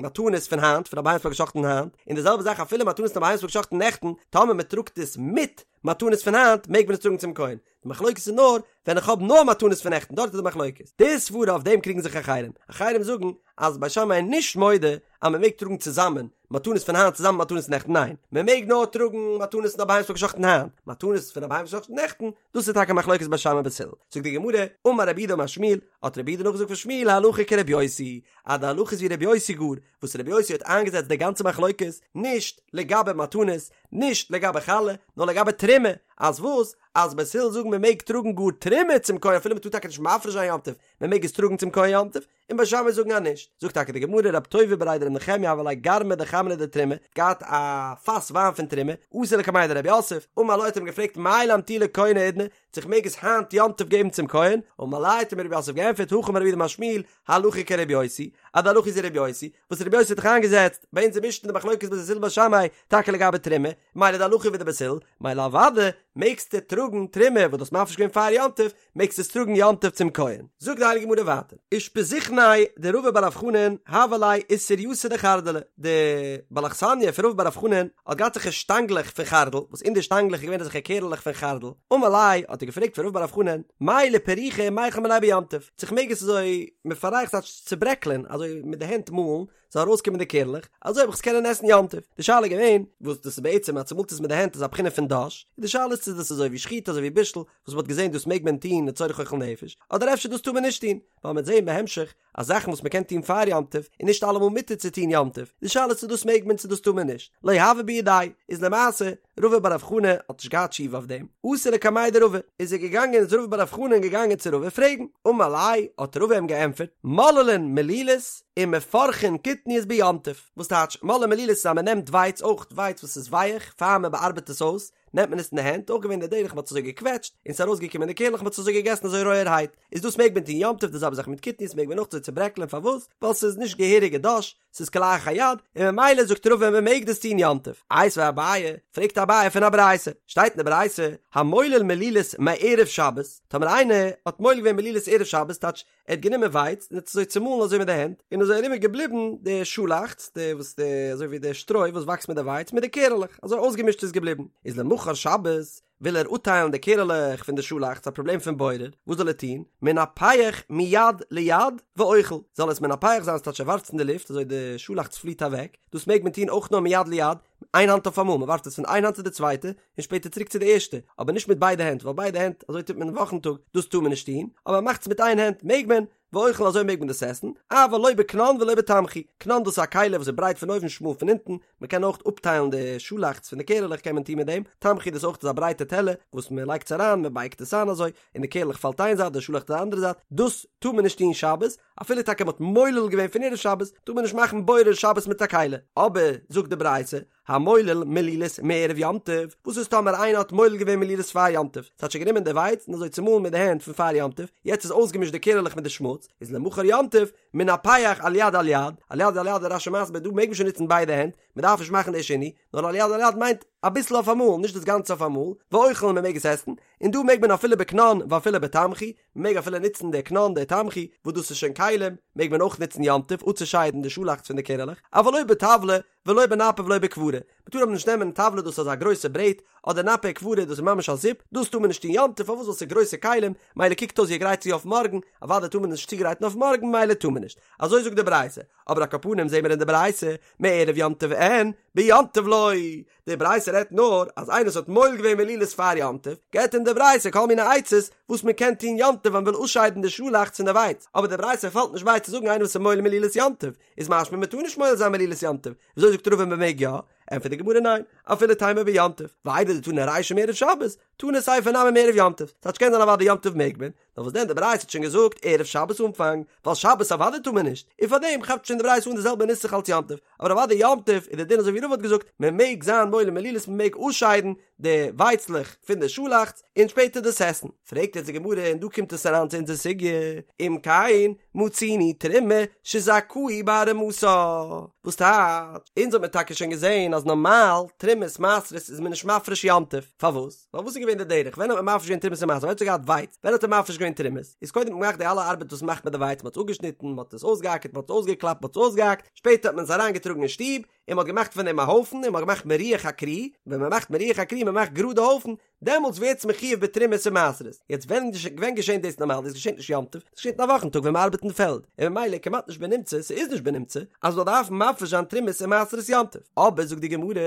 מתנות פון היינט פון א בהמה וואס מען האט גע'שחט'ן היינט, און די זעלבע זאך אפילו מתנות פון א בהמה וואס מען האט גע'שחט'ן נעכטן, טאמער מען טראגט עס מיט מתנות פון היינט מעג מען עס טראגן צום כהן, די מחלוקת איז נאר ווען איך האב נאר מתנות פון נעכטן דארט איז די מחלוקת, די סברה אויף דעם קריגן זיך אחרים, אחרים זאגן אז בית שמאי איז נישט מודה אז מען מעג טראגן צוזאמען מתנות פון היינט צוזאמען מיט מתנות נעכטן ניין מען מעג נאר טראגן מתנות פון א בהמה וואס מ'האט געשחט'ן היינט, מתנות פון א בהמה וואס מ'האט געשחט'ן נעכטן דאס איז טאקע מחלוקת בית שמאי בית הלל, זאגט די גמרא, אמר רב יהודה אמר שמואל, האט רב יהודה נאכגעזאגט פון שמואל הלכה כרבי יוסי, אז די הלכה איז ווי רבי יוסי גאר, וואס רבי יוסי האט איינגעזעצט די גאנצע מחלוקת נישט לגבי מתנות, נישט לגבי חלה, נאר לגבי תרומה, אז וואס? אז בית הלל זאגן מען מעג טראגן גאר תרומה צום כהן אפילו מען טאר טאקע נישט מפריש זיין יום טוב, מען מעג עס טראגן צום כהן יום טוב, און בית שמאי זאגן אז נישט. זאגט טאקע די גמרא רב טובי בריה דרב נחמיה הוה ליה גרמא דחמרא דתרומה, געהאט א פאס וויין פון תרומה, אתא לקמיה דרב יוסף, אמר ליה האט ער אים געפרעגט מהו לאמטויי לכהן האידנא, צו איך מעג עס היינט יום טוב געבן צום כהן, אמר ליה האט אים רב יוסף געענטפערט הכי אמר רב יהודה אמר שמואל, הלכה כרבי יוסי, אז די הלכה איז ווי רבי יוסי, וואס רבי יוסי האט דאך איינגעזעצט ביי אונזער משנה די מחלוקת בית הלל בית שמאי, טאקע לגבי תרומה, מילא די הלכה ווי די בית הלל, מילא אוודאי מעגסטו טראגן תרומה וואס דו האסט מפריש געווען פאר יום טוב, מעגסט עס טראגן יום טוב צום כהן. זאגט די הייליגע גמרא ווייטער, אושפזיכניה דרבא בר רב חנן הוה ליה עישורייתא דחרדלא, די בעל אכסניא פון רבא בר רב חנן האט געהאט אזעלכע שטאנגלעך פון חרדל, וואס אין די שטאנגלעך איז געווען אזעלכע קערעלעך פון חרדל, אמר ליה האט ער געפרעגט פון רבא בר רב חנן, מהו לפרוכי מיכל מינייהו ביום טוב, צו כ'מעג עס אזוי מפרך ס'טייטש צוברעקלען, אזוי מיט די הענט מאלן, זאל ארויסקומען די קערלעך, אזוי וועל איך עס קענען עסן יום טוב. די שאלה איז געווען, וואס דאס איז בעצם אז צומאלט עס מיט די הענט איז א בחינה פון דש, און די שאלה איז צו דאס איז אזוי ווי שחיטה אזוי ווי בישול, וואס מ'האט געזען דאס מעג מען טון לצורך אוכל נפש, אדער אפשר דאס טאר מען נישט טון, ווייל מ'וועט זען בהמשך אז זאכן וואס מ'קען טון פאר יום טוב איז נישט אלעמאל מותר צו טון יום טוב, די שאלה איז צו דאס מעג מען צו דאס טאר מען נישט. לא הוה בידיה, איז למעשה רבא בר רב חנן האט נישט געהאט תשובה אויף דעם, אתא לקמיה דרבא, איז ער געגאנגען איז רבא בר רב חנן געגאנגען צו רבא פרעגן, אמר ליה, האט רבא אים געענטפערט, מוללין מלילות ומפרכין קטניות ביום טוב, וואס טייטש מוללין מלילות איז אז מען נעמט ווייץ, אויך ווייץ וואס איז ווייעך, פאר מען באארבעט עס אויס, נעמט מען עס אין די הענט, אויך געווען די דרך מען האט עס אזוי געקוועטשט, און ס'איז ארויסגעקומען די קערלעך מען האט עס אזוי געגעסן אזוי רויערהייט, איז דאס מעג מען טון יום טוב, די זעלבע זאך מיט קטניות מעג מען אויך אזוי צוברעקלען, פארוואס? ווייל ס'איז נישט געהעריגע דש, ס'איז כלאחר יד, און ממילא זאגט רבא מען מעג דאס טון יום טוב. איתיביה אביי, פרעגט אביי פון א ברייתא, שטייט אין די ברייתא, המולל מלילות מערב שבת, טאמער איינער האט מולל געווען מלילות ערב שבת, טייטש ער האט גענומען ווייץ און האט עס אזוי צומאלן אזוי מיט די הענט, און אזוי ארום איז געבליבן די שאלאכץ, די וואס די אזוי ווי די שטרוי וואס וואקסט מיט די ווייץ מיט די קערעלעך, אזוי אויסגעמישט איז געבליבן, איז למחר שבת, וויל ער אפטיילן די קערעלעך פון די שאלאכץ, א פראבלעם פון בורר, וואס זאל ער טון? מנפח מיד ליד ואוכל, זאל עס מנפח זיין ס'טייטש ער ווארפט עס אין די לופט אזוי די שאלאכץ פליט אוועק, דאס מעג מען טון אויך נאר מיד ליד, איין האנט אויף אמאל, מען ווארפט עס פון איין האנט צו די צווייטע, און שפעטער צוריק צו די ערשטע, אבער נישט מיט ביידע הענט, ווייל ביידע הענט, אזוי טוט מען אין וואכן טאג, דאס טאר מען נישט טון, אבער מען מאכט עס מיט איין הענט מעג מען, ואוכל אזוי מעג מען דאס עסן, אבל לא בקנון ולא בתמחוי, קנון דאס איז א כלי וואס איז ברייט פון אויבן שמאל פון אונטן, מען קען אויך אפטיילן די שאלאכץ פון די קערעלעך קען מען טון מיט דעם, תמחוי דאס אויך איז א ברייטע טעלער וואס מען לייגט עס אריין מען בייגט עס איין אזוי, און די קערעלעך פאלט איין זייט די שאלאכץ די אנדערע זייט, דאס טאר מען נישט טון שבת, אפילו טאקע מען האט מולל געווען פון ערב שבת, טאר מען נישט מאכן בורר שבת מיט א כלי, אבער זאגט די ברייתא, המולל מלילות מערב יום טוב, וואס איז טאמער איינער האט מולל געווען מלילות פאר יום טוב, ס'טייטש גענומען די ווייץ און אזוי צומאלן מיט די הענט פון פאר יום טוב, יעצט איז אויסגעמישט די קערעלעך מיט די שמוץ, איז למחר יום טוב, מנפח על יד על יד, על יד על יד איז רש"י מסביר דא מעג מען שוין נוצן ביידע הענט, מען דארף נישט מאכן די שינוי, נאר על יד על יד מיינט אביסל אויף אמאל, נישט דאס גאנצע אויף אמאל, ואוכל מען מעג עס עסן, און דא מעג מען אפילו בקנון ואפילו בתמחוי, מען מעג אפילו נוצן די קנון די תמחוי, וואס דאס איז שוין כלים, מעג מען אויך נוצן יום טוב אפצושיידן די שאלאכץ פון די קערעלעך, אבל לא בטבלא, ולא בנפה ולא בכברה, מען טאר אבער נישט נעמען טבלא דאס איז אזא גרויסע ברעט, אדער נפה כברה דאס איז ממש א זיפ, דאס טאר מען נישט טון יום טוב פארוואס ווייל ס'איז גרויסע כלים, מילא קוקט אויס ווי ער גרייט צו אויף מארגן, אוודאי טאר מען נישט צוגרייטן אויף מארגן מילא טאר מען נישט, אזוי זאגט די ברייתא, אבער על כל פנים זעהן מיר אין די ברייתא, מערב יום טוב אין. אין, ביום טוב לא. די ברייתא רעדט נאר אז איינער וואס האט מועל געווען מלילות פאר יום טוב, געבט אים די ברייתא כל מיני עצות וואס מען קען טון יום טוב ווען מען וויל אפשיידן די שאלאכץ פון די ווייץ, אבער די ברייתא פאלט נישט ביי צו זאגן איינער וואס איז מועל מלילות יום טוב, איז משמע מען טאר נישט מועל זיין מלילות יום טוב, וויאזוי זאגט רבא מען מעג יא? ענטפערט די גמרא ניין, אפילו תימא ביום טוב, ואיידי דתנא רישא מערב שבת, תנא סיפא נמי מערב יום טוב, ס'טייטש קען זיין אוודאי יום טוב מעג מען, נאר וואס דען די ברייתא האט שוין געזאגט ערב שבת אנפאנג, ווייל שבת אוודאי טאר מען נישט, און פארדעם כאפט שוין די ברייתא אן די זעלבע נוסח אלס יום טוב, אבער אוודאי יום טוב איז די דין אזוי ווי רבא האט געזאגט, מען מעג זיין מועל מלילות מען מעג אפשיידן די ווייצלעך פון די שאלאכץ און שפעטער דאס עסן. פרעגט יעצט די גמרא און דא קומט עס אריין צו אונזער סוגיא, אם כן מצינו תרומה שזכאו בהרמתה, וואס טייטש, אונז האט מען טאקע שוין געזען אז נארמאל תרומות מעשרות איז מען נישט מפריש יום טוב, פארוואס? ווייל וואס איז געווען די דרך? ווען האט מען מפריש געווען תרומות און מעשרות? ווען האט ער געהאט ווייץ? ווען האט ער מפריש געווען תרומות? איז קודם האט מען געמאכט די אלע ארבעט וואס מ'מאכט מיט די ווייץ, מ'האט עס אפגעשניטן, מ'האט עס אויסגעאקערט, מ'האט עס אויסגעקלאפט, מ'האט עס אויסגעהאקט, שפעטער האט מען עס אריינגעטראגן אין שטוב, און מ'האט געמאכט פון דעם א הויפן, און מ'האט געמאכט מירוח הכרי, ווען מ'מאכט מירוח הכרי, מ'מאכט גראד די הויפן, דעמאלטס ווערט עס מחויב בתרומות און מעשרות. יעצט ווען ווען געשענט דאס נארמאל? דאס געשענט נישט יום טוב, דאס געשענט אין א וואכן טאג ווען מ'ארבעט אין פעלד, און ממילא כמעט נישט בנמצא, ס'איז נישט בנמצא, אז מ'זאל דארפן מפריש זיין תרומות און מעשרות יום טוב. אבער זאגט די גמרא,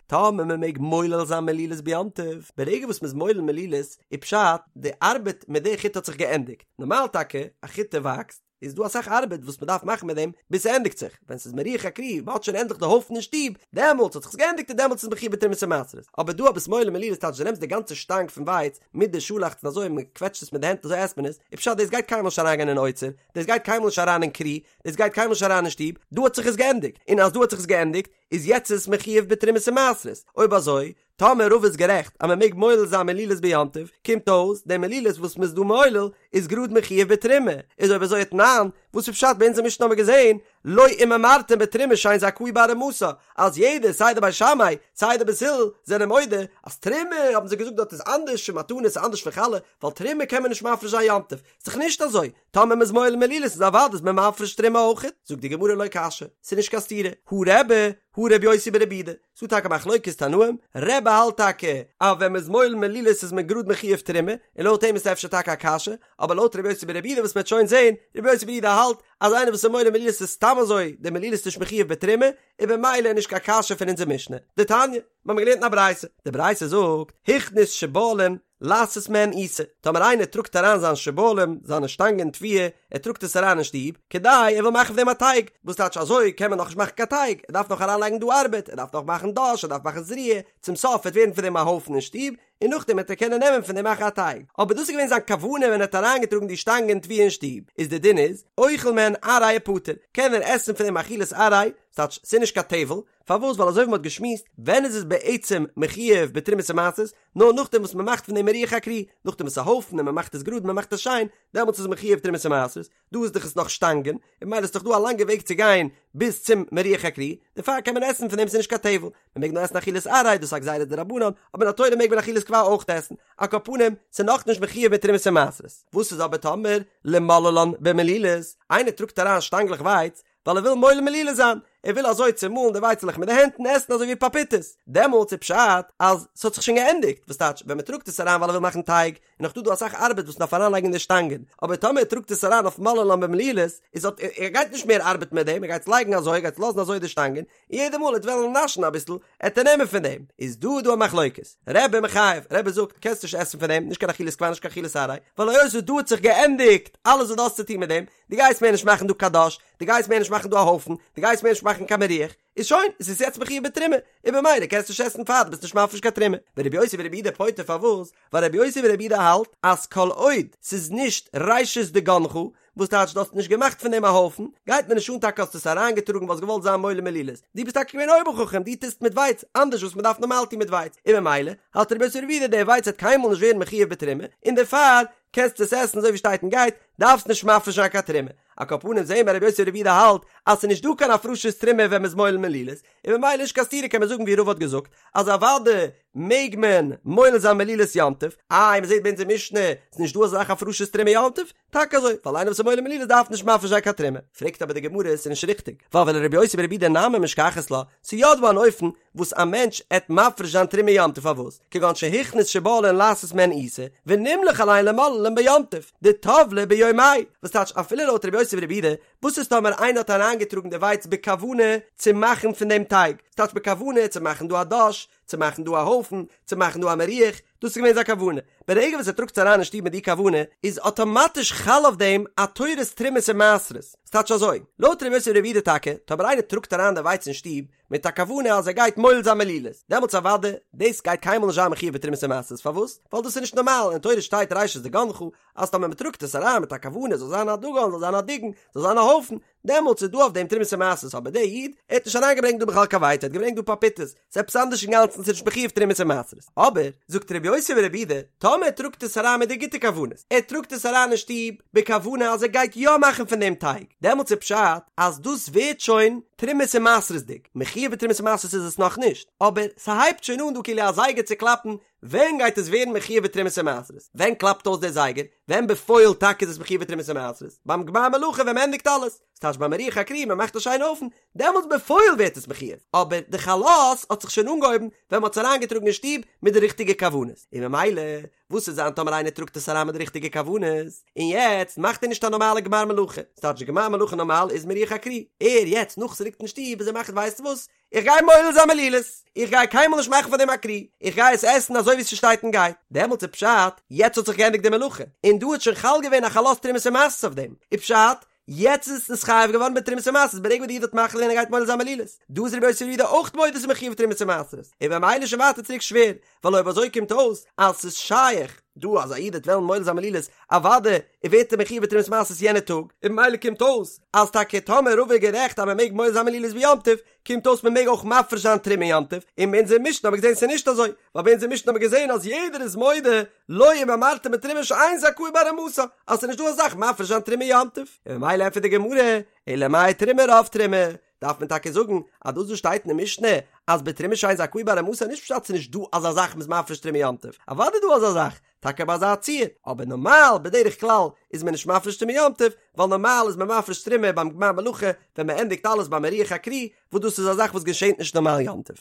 טאמער מ'מעג מולל זיין מלילות ביום טוב, ברגע וואס מ'איז מולל מלילות, איז פשט, די ארבעט מיט די חיטה האט זיך געענדיגט. נארמאל טאקע, א חיטה וואקסט, איז דא אסאך ארבעט וואס מ'דארף מאכן מיט דעם ביז ס'ענדיגט זיך, ווען ס'איז מירוח הכרי, מ'האט שוין ענדליך די הויפן אין שטוב, דעמאלטס האט זיך עס געענדיגט און דעמאלטס איז מחויב בתרומות ומעשרות. אבער דא אויב ביסט מולל מלילות טייטש דו נעמסט די גאנצע שטאנג פון ווייץ מיט די שאלאכץ און אזוי מ'קוועטשט עס מיט די הענט אזוי עסט מען עס, איז פשט דאס גייט קיינמאל נישט אריינגיין אין אוצר, דאס גייט קיינמאל נישט אריין אין כרי, דאס גייט קיינמאל נישט אריין אין שטוב, דא האט זיך עס געענדיגט, און אז דא האט זיך עס געענדיגט, איז יעצט איז עס מחויב בתרומות ומעשרות, אויב אזוי, טאמער רבא איז גערעכט אז מען מעג מולל זיין מלילות ביום טוב, קומט אויס, די מלילות וואס מען איז דא מולל, איז גראד מחויב בתרומה, איז אויב אזוי ותנן, וואס איז פשט ביי אונזער משנה האבן מיר געזען, לא אם אמרתם בתרומה שאין זכאי בהרמתה, אז יעדער סיי די בית שמאי סיי די בית הלל זענען מודה אז תרומה האבן זיי געזאגט דארט איז אנדערש פון מתנות איז אנדערש פון חלה, ווייל תרומה קען מען נישט מפריש זיין יום טוב, איז דאך נישט אזוי, טאמער מ'איז מולל מלילות איז אוודאי איז מען מפריש תרומה אויכעט, זאגט די גמרא לא קשיא, ס'איז נישט קיין סתירה, הא רבי, הא רבי יוסי ברבי יהודה, ס'דא טאקע מחלוקת תנאים, רבי האלט טאקע אז ווען מ'איז מולל מלילות איז מען גראד מחויב תרומה, און לויט אים איז אפשר טאקע א קשיא, אבער לויט רבי יוסי ברבי יהודה וואס מ'וועט שוין זעהן, רבי יוסי ברבי יהודה האלט אז איינער וואס איז מולל מלילות איז סתם אזוי די מלילות נישט מחויב בתרומה, און במילא איז נישט קיין קשיא פון אונזער משנה. דתניא, מ'האמיר געלערנט אין א ברייתא, די ברייתא זאגט, הכניס שבלים לעשות מהן עיסה, טאמער איינער טראגט אריין זיין שבלים, זיינע שטאנגען תבואה, ער טראגט עס אריין אין שטוב, כדי ער וויל מאכן פון דעם א טייג, וואס טייטש אזוי קען מען נאכנישט מאכן קיין טייג, ער דארף נאך אריינלייגן דא ארבעט, ער דארף נאך מאכן דש, ער דארף מאכן זריעה, צום סוף וועט ווערן פון דעם א הויפן אין שטוב, און נאכדעם וועט ער קענען נעמען פון דעם מאכן א טייג. אבער דאס איז געווען זיין כוונה ווען ער האט אריינגעטראגן די שטאנגען תבואה אין שטוב, איז די דין איז, אוכל מהן עראי ופטור, קען ער עסן פון דעם אכילת עראי, ס'טייטש ס'איז נישט קיין טבל, פארוואס ווייל אזוי ווי מ'האט געשמועסט, ווען איז עס בעצם מחויב בתרומות ומעשרות, נאר נאכדעם וואס מ'מאכט פון דעם מירוח הכרי, נאכדעם וואס ס'איז א הויפן און מ'מאכט עס גראד און מ'מאכט עס שיין, דעמאלטס איז מחויב תרומות ומעשרות, דא איז דאך עס נאך שטאנגען, און ממילא איז דאך דא א לאנגע וועג צו גיין ביז צום מירוח הכרי, דערפאר קען מען עסן פון דעם ס'איז נישט קיין טבל, מ'מעג נאר עסן אכילת עראי, דאס איז א גזירה דרבנן, אבער מן התורה מעג מען אכילת קבע אויך עסן, על כל פנים, ס'איז נאכנישט מחויב מיט תרומות ומעשרות. וואס איז אבער טאמער למוללן במלילות, איינער טראגט אריין שטאנגלעך ווייץ, ווייל ער וויל מולל מלילות זיין, ער וויל אזוי צומאלן די ווייצעלעך מיט די הענט און עסן אזוי ווי פאפיטעס, דעמאלטס איז פשט אז ס'האט זיך שוין געענדיגט, וואס טייטש ווען מ'טראגט עס אריין ווייל ער וויל מאכן טייג, איז נאך דא דא אסאך ארבעט וואס מ'דארף אריינלייגן אין די שטאנגען, אבער טאמער ער טראגט עס אריין אויף מוללן במלילות, איז האט ער גייט נישט מער ארבעטן מיט דעם, ער גייט עס לייגן אזוי, ער גייט עס לאזן אזוי די שטאנגען, און יעדע מאל ער וועט וועלן נאשן אביסל, עט ער נעמען פון דעם, איז דא דא א מחלוקת, רבי מחייב, רבי זאגט קענסט נישט עסן פון דעם, נישט קיין אכילת קבע נישט קיין אכילת עראי, ווייל היות וואס דא האט זיך געענדיגט אלעס וואס דו האסט צו טון מיט דעם, דו גייסט מער נישט מאכן דא קיין דש, דו גייסט מער נישט מאכן דא א הויפן, דו גייסט מער נישט מאכן קיין מירוח, איז שוין, עס איז יעצט מחויב בתרומה, און במילא קענסטו נישט עסן פאר דו ביסט נישט מפריש קיין תרומה. ורבי יוסי ברבי יהודה פוטר פארוואס? ווייל רבי יוסי ברבי יהודה האלט אז כל עוד ס'איז נישט ראשית דגנך, וואס טייטש דו האסט נישט געמאכט פון דעם א הויפן, גייט מיר נישט אן טאקע האסט עס אריינגעטראגן ווייל האסט געוואלט זיין מולל מלילות, דו ביסט טאקע געווען אויבער חכם, דו טוסט מיט ווייץ אנדערש וואס מ'דארף נארמאל טון מיט ווייץ, און במילא האלט רבי יוסי ברבי יהודה דער ווייץ וועט קיינמאל נישט ווערן מחויב בתרומה, און דערפאר קענסטו עס עסן אזוי ווי שטייט און גייט, דארפסט נישט מפריש זיין קיין תרומה. על כל פנים זעהן מיר רבי יוסי ברבי יהודה האלט אז ס'איז נישט דא קיין הפרשת תרומה ווען מ'איז מולל מלילות, און ממילא נישט קיין סתירה קען מען זאגן ווי רבא האט געזאגט אז אוודאי מעג מען מולל זיין מלילות יום טוב, איי מ'זעהט ביי אונזער משנה ס'איז נישט דא אזא זאך הפרשת תרומה יום טוב? טאקע אזוי, ווייל איינער וואס איז מולל מלילות דארף נישט מפריש זיין קיין תרומה. פרעגט אבער די גמרא ס'איז נישט ריכטיג, ווייל ולרבי יוסי ברבי יהודה נמי משכחת לה, ס'איז יא דא אן אופן וואס א מענטש עט מפריש זיין תרומה יום טוב פארוואס? כגון שהכניס שבולין לעשות מהן עיסה, ונמלך עליהן למוללן ביום טוב, דטבלה ביום. ביומיה, וואס טייטש אפילו לויט רבי יוסי ברבי יהודה, וואס איז טאמער איינער האט אריינגעטראגן די ווייץ בכוונה צו מאכן פון דעם טייג, ס'טייטש בכוונה צו מאכן דא א דאש, צו מאכן דא א הויפן, צו מאכן דא א מירוח, דאס איז געווען זיין כוונה, ברגע וואס ער טראגט עס אריין אין שטוב מיט די כוונה, איז אטאמאטיש חל אויף דעם א תורת תרומות און מעשרות, ס'טייטש אזוי, לויט רבי יוסי ברבי יהודה טאקע, טאמער איינער טראגט אריין די ווייץ אין שטוב מיט א כוונה אז ער גייט מולל זיין מלילות, דעמאלטס אוודאי, דאס גייט קיינמאל נישט זיין מחויב בתרומות און מעשרות, פארוואס? ווייל דאס איז נישט נארמאל, אין תורה שטייט ראשית דגנך, אז טאמער מ'טראגט עס אריין מיט א כוונה זאל זיין א דגן, זאל זיין א דיגון, זאל זיין א הויפן, דעמאלטס איז דא אויף דעם תרומות און מעשרות, אבער דער איד, ער האט נישט אריינגעברענגט דא בכלל קיין ווייץ, ער האט געברענגט דא פאפיטעס, ס'איז עפעס אנדערש אינגאנצן, ס'איז נישט מחויב תרומות און מעשרות. אבער, זאגט רבי יוסי ברבי יהודה, טאמער ער טראגט עס אריין מיט די גוטע כוונות, ער טראגט עס אריין אין שטוב בכוונה אז ער גייט יא מאכן פון דעם טייג, דעמאלטס איז פשט אז דאס ווערט שוין תרומות און מעשרות'דיג, מחויב בתרומות און מעשרות איז עס נאכנישט, אבער ס'הייבט שוין אן דא כאילו א זייגער צו קלאפן ווען גייט עס ווערן מחויב בתרומות ומעשרות? ווען קלאפט אויס דער זייגער? ווען בפועל טאקע איז עס מחויב בתרומות ומעשרות? ביים גמר מלאכה ווען מ'ענדיגט אלעס, ס'טייטש ביים מירוח הכרי מ'מאכט א שיינע הויפן, דעמאלטס בפועל ווערט עס מחויב, אבער די חלות האט זיך שוין אנגעהויבן ווען מ'האט עס אריינגעטראגן אין שטוב מיט די ריכטיגע כוונות, און ממילא וואס וועט זיין טאמער איינער טראגט עס אריין מיט די ריכטיגע כוונות, און יעצט מאכט ער נישט א נארמאלע גמר מלאכה, ס'טייטש די גמר מלאכה נארמאל איז מירוח הכרי, ער יעצט נאך ס'ליגט אין שטוב איז ער מחליט ווייסט וואס, איך גיי מולל זיין מלילות, איך גיי קיינמאל נישט מאכן פון דעם א כרי, איך גיי עס עסן אזוי ווי ס'שטייט און גייט, דעמאלטס איז פשט, יעצט האט זיך געענדיגט די מלאכה, און דא האט שוין חל געווען א חלות תרומות ומעשרות אויף דעם, איז פשט, יעצט איז עס נתחייב געווארן בתרומות ומעשרות ברגע וואס די איד האט מחליט געווען ער גייט מולל זיין מלילות, דא איז רבי יוסי ברבי יהודה אויך מודה ס'איז מחויב תרומות ומעשרות, און במילא שוין ווייטער צוריק שווער, ווייל אויב אזוי קומט אויס אז ס'איז שייך דא אז א איד וועט וועלן מולל זיין מלילות אוודאי ווערט ער מחויב בתרומת מעשרות יענע טאג, און במילא קומט אויס אז טאקע טאמער רבא איז גערעכט אז מ'מעג מולל זיין מלילות ביום טוב, קומט אויס מ'מעג אויך מפריש זיין תרומה יום טוב, און ביי אונזער משנה האבן מיר געזען ס'איז נישט אזוי, ווייל ביי אונזער משנה האבן מיר געזען אז יעדער איז מודה לא אם אמרת בתרומה שאין זכאי בהרמתה אז ס'איז נישט דא אזא זאך מפריש זיין תרומה יום טוב, און במילא ענטפערט די גמרא, אלא מאי תרומה רוב תרומה, דארף מען טאקע זאגן אז דאס וואס שטייט אין די משנה אז בתרומה שאין זכאי בהרמתה נישט פשט ס'איז נישט דא אזא זאך מ'איז מפריש תרומה יום טוב, אוודאי איז דא אזא זאך, טאקע ביי אזא ציור, אבער נארמאל בדרך כלל איז מען נישט מפריש תרומה יום טוב, ווייל נארמאל איז מען מפריש תרומה ביים גמר מלאכה ווען מען ענדיגט אלעס ביים מירוח הכרי, וואס דאס איז א זאך וואס געשענט נישט נארמאל יום טוב.